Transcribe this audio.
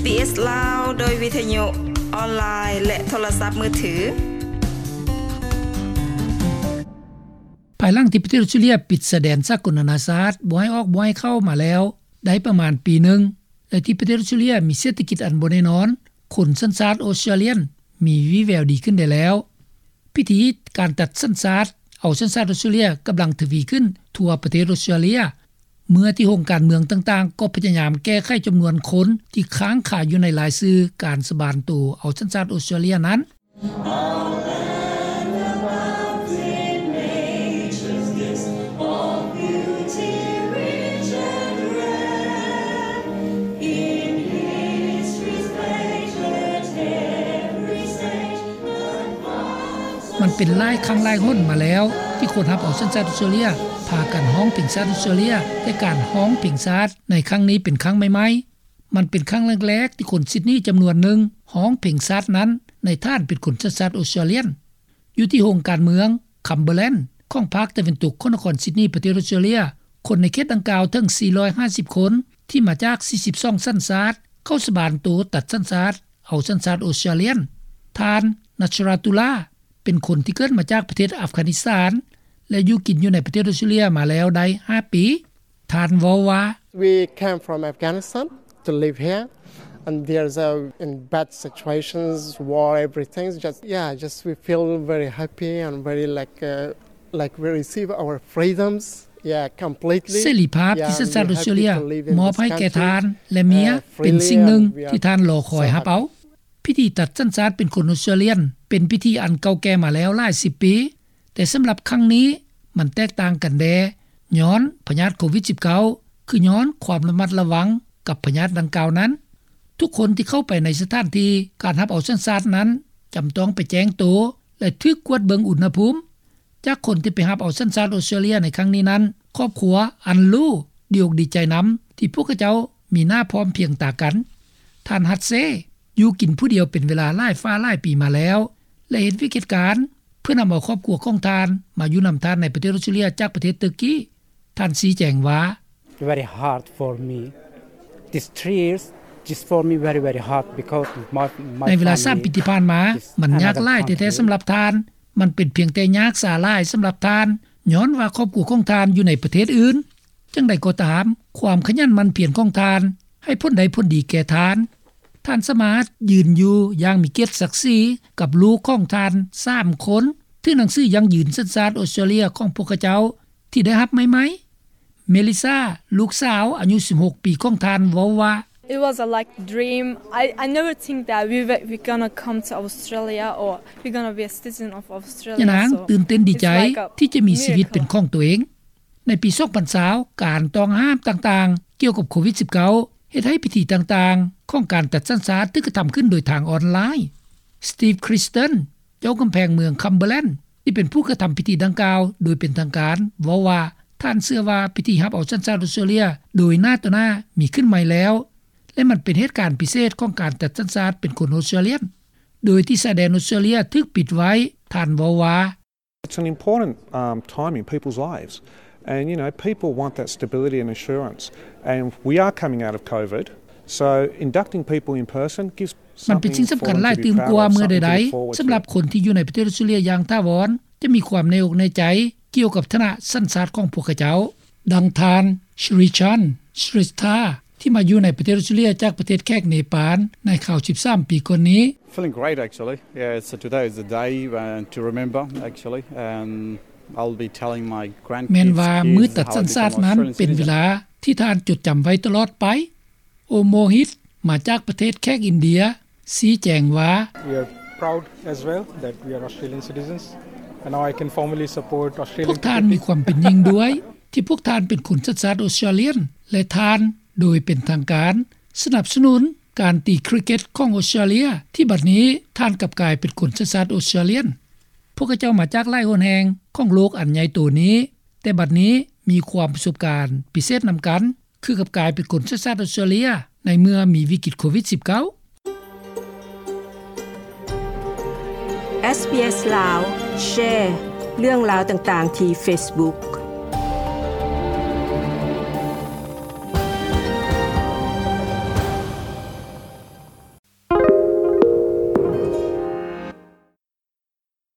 ເອສ ລາວ ໂດຍວິທະຍຸອອນລາຍ ແລະ ໂທລະສັບມືຖື. ພາຍຫຼັງທີ່ປະເທດອອສເຕຣເລັຽປິດຊາຍແດນສາກົນນານາຊາດບໍ່ໃຫ້ອອກບໍ່ໃຫ້ເຂົ້າມາແລ້ວໄດ້ປະມານປີໜຶ່ງ ແລະ ທີ່ປະເທດອອສເຕຣເລັຽມີເສດຖະກິດອັນບໍ່ແນ່ນອນ, ຄົນສັນຊາດອອສເຕຣເລັຽນມີວີແວວດີຂຶ້ນໄດ້ແລ້ວ. ພິທີການຕັດສັນຊາດ ເອົາສັນຊາດອອສເຕຣເລັຽກຳລັງທະວີຂຶ້ນທົ່ວປະເທດອອສເຕຣເລັຽ ເມື່ອທີ່ໂຮງການເມືອງຕ່າງໆກໍພະຍາຍາມແກ້ໄຂຈຳນວນຄົນທີ່ຄ້າງຄາຢູ່ໃນລາຍຊື່ການສະບານໂຕເອົາສັນຊາດອອສເຕຣເລັຽນັ້ນ. In history's great every stage. ມັນເປັນຫຼາຍຄັ້ງຫຼາຍຫົນມາແລ້ວ ທີ່ຄົນຮັບເອົາສັນຊາດອອສເຕຣເລັຽພາກັນຮ້ອງເພງຊາດອອສເຕຣເລັຽ, ແຕ່ການຮ້ອງເພງຊາດໃນຄັ້ງນີ້ເປັນຄັ້ງໃໝ່ໆ. ມັນເປັນຄັ້ງແລກໆທີ່ຄົນຊິດນີຈຳນວນໜຶ່ງຮ້ອງເພງຊາດນັ້ນ ໃນຖານເປັນຄົນສັນຊາດອອສເຕຣເລັຽນ. ຢູ່ທີ່ໂຮງການເມືອງ Cumberland ຂອງພາກຕາເວັນຕົກຂອງນະຄອນຊິດນີ ປະເທດອອສເຕຣເລັຽ, ຄົນໃນເຂດດັ່ງກ່າວເຖິງສີ່ຮ້ອຍຫ້າສິບຄົນ ທີ່ມາຈາກສີ່ສິບສອງສັນຊາດ ເຂົ້າສະບານໂຕຕັດສັນຊາດ ເອົາສັນຊາດອອສເຕຣເລັຽນ. ທ່ານ Nasratullah ເປັນຄົນທີ່ເກີດມາຈາກປະເທດອັຟການິສຖານ ແລະ ຢູ່ກິນຢູ່ໃນປະເທດອອສເຕຣເລັຽມາແລ້ວໄດ້ຫ້າປີ. ທ່ານເວົ້າວ່າ We came from Afghanistan to live here, and there's a, in bad situations, war, everything. Just, yeah, just we feel very happy and very, like, uh, like, we receive our freedoms, yeah, completely. ເສລີພາບທີ່ສັນຊາດອອສເຕຣເລັຽມອບໃຫ້ແກ່ທ່ານ ແລະ ເມຍ ເປັນສິ່ງໜຶ່ງທີ່ທ່ານລໍຄອຍຮັບເອົາ. ພິທີຕັດສັນຊາດເປັນຄົນອອສເຕຣເລັຽນ ເປັນພິທີອັນເກົ່າແກ່ມາແລ້ວຫຼາຍສິບປີ, ແຕ່ສຳລັບຄັ້ງນີ້ມັນແຕກຕ່າງກັນແດ່ ຍ້ອນພະຍາດໂຄວິດສິບເກົ້າ ຄືຍ້ອນຄວາມລະມັດລະວັງກັບພະຍາດດັ່ງກ່າວນັ້ນ. ທຸກຄົນທີ່ເຂົ້າໄປໃນສະຖານທີ່ການຮັບເອົາສັນຊາດນັ້ນ ຈຳຕ້ອງໄປແຈ້ງໂຕ ແລະ ຖືກກວດເບິ່ງອຸນຫະພູມ. ຈາກຄົນທີ່ໄປຮັບເອົາສັນຊາດອອສເຕຣເລັຽໃນຄັ້ງນີ້ນັ້ນ, ຄອບຄົວອັນຫຼູ່ດີອົກດີໃຈນຳທີ່ພວກເຂົາເຈົ້າມີໜ້າພ້ອມພຽງຕາກັນ. ທ່ານ Hasse ຢູ່ກິນຜູ້ດຽວເປັນເວລາຫຼາຍຟ້າຫຼາຍປີມາແລ້ວ ແລະ ເຮັດວຽກເຮັດການເພື່ອນຳເອົາຄອບຄົວຂອງທ່ານມາຢູ່ນຳທ່ານໃນປະເທດອອສເຕຣເລັຽຈາກປະເທດເຕີກີ. ທ່ານຊີ້ແຈງວ່າ Very hard for me. These three years is for me very, very hard because my, my ໃນເວລາສາມປີທີ່ຜ່ານມາ ມັນຍາກຫຼາຍແທ້ໆສຳລັບທ່ານ. ມັນເປັນພຽງແຕ່ຍາກສາຫຼາຍສຳລັບທ່ານ ຍ້ອນວ່າຄອບຄົວຂອງທ່ານຢູ່ໃນປະເທດອື່ນ. ຈັ່ງໃດກໍຕາມ, ຄວາມຂະຫຍັນໝັ່ນພຽນຂອງທ່ານໃຫ້ຜົນໄດ້ຜົນດີແກ່ທ່ານ. ທ່ານສາມາດຢືນຢູ່ຢ່າງມີກຽດສັກສີກັບລູກຂອງທ່ານສາມຄົນ ຖືໜັງສືຢັ້ງຢືນສັນຊາດອອສເຕຣເລັຽຂອງພວກເຂົາເຈົ້າທີ່ໄດ້ຮັບໃໝ່ໆ. ເມລິຊາ ລູກສາວອາຍຸສິບຫົກປີຂອງທ່ານເວົ້າວ່າ It was a, like, dream. I, I never think that we were, we gonna come to Australia or we gonna be a citizen of Australia. ຍານາງຕື່ນເຕັ້ນດີໃຈທີ່ຈະມີຊີວິດເປັນຂອງຕົວເອງ. ໃນປີສອງພັນຊາວ ການຕ້ອງຫ້າມຕ່າງໆກ່ຽວກັບໂຄວິດສິບເກົ້າ ເຮັດໃຫ້ພິທີຕ່າງໆຂອງການຕັດສັນຊາດຖືກກະທຳຂຶ້ນໂດຍທາງອອນລາຍ. Steve Christen ເຈົ້າກຳແພງເມືອງ Cumberland ທີ່ເປັນຜູ້ກະທຳພິທີດັ່ງກ່າວໂດຍເປັນທາງການ ເວົ້າວ່າ ທ່ານເຊື່ອວ່າພິທີຮັບເອົາສັນຊາດອອສເຕຣເລັຽໂດຍໜ້າຕໍ່ໜ້າມີຂຶ້ນໃໝ່ແລ້ວ ແລະ ມັນເປັນເຫດການພິເສດຂອງການຕັດສັນຊາດເປັນຄົນອອສເຕຣເລັຽນ ໂດຍທີ່ຊາຍແດນອອສເຕຣເລັຽຖືກປິດໄວ້. ທ່ານເວົ້າວ່າ It's an important, um, time in people's lives. And, you know, people want that stability and assurance. And we are coming out of COVID. So inducting people in person gives ມັນເປັນສິ່ງສຳຄັນຫຼາຍຕື່ມກວ່າເມື່ອໃດໆ ສຳລັບຄົນທີ່ຢູ່ໃນປະເທດອອສເຕຣເລັຽຢ່າງຖາວອນ ຈະມີຄວາມແນ່ອົກແນ່ໃຈກ່ຽວກັບຖານະສັນຊາດຂອງພວກເຂົາເຈົ້າ. ດັ່ງທ່ານ Shrichan Shrestha ທີ່ມາຢູ່ໃນປະເທດອອສເຕຣເລັຽຈາກປະເທດແຂກເນປານ ໃນຄາວສິບສາມປີກ່ອນນີ້. Feeling great, actually. Yeah, so today is the day, uh, to remember, actually. And I'll be telling my grandkids, ແມ່ນວ່າມື້ຕັດສັນຊາດນັ້ນເປັນເວລາທີ່ທ່ານຈົດຈຳໄວ້ຕະຫຼອດໄປ. ໂອໂມຮິດ ມາຈາກປະເທດແຂກອິນເດຍ ຊີ້ແຈງວ່າ We are proud as well that we are Australian citizens and now I can formally support Australian cricket. ພວກທ່ານມີຄວາມເປັນຍິ່ງດ້ວຍທີ່ພວກທ່ານເປັນຄົນສັນຊາດອອສເຕຣເລັຽນ ແລະ ທ່ານໂດຍເປັນທາງການສະໜັບສະໜູນການຕີຄຣິກເກັດຂອງອອສເຕຣເລັຽ ທີ່ບັດນີ້ທ່ານກັບກາຍເປັນຄົນສັນຊາດອອສເຕຣເລັຽນ. ພວກເຂົາເຈົ້າມາຈາກຫຼາຍຫົນແຫ່ງຂອງໂລກອັນໃຫຍ່ໂຕນີ້ ແຕ່ບັດນີ້ມີຄວາມປະສົບການພິເສດນຳກັນ ຄືກັບກາຍເປັນຄົນສັນຊາດອອສເຕຣເລັຽໃນເມື່ອມີວິກິດໂຄວິດສິບເກົ້າ. ເອສບີເອສ ລາວ ແຊເລື່ອງລາວຕ່າງໆທີ່ເຟສບຸກ.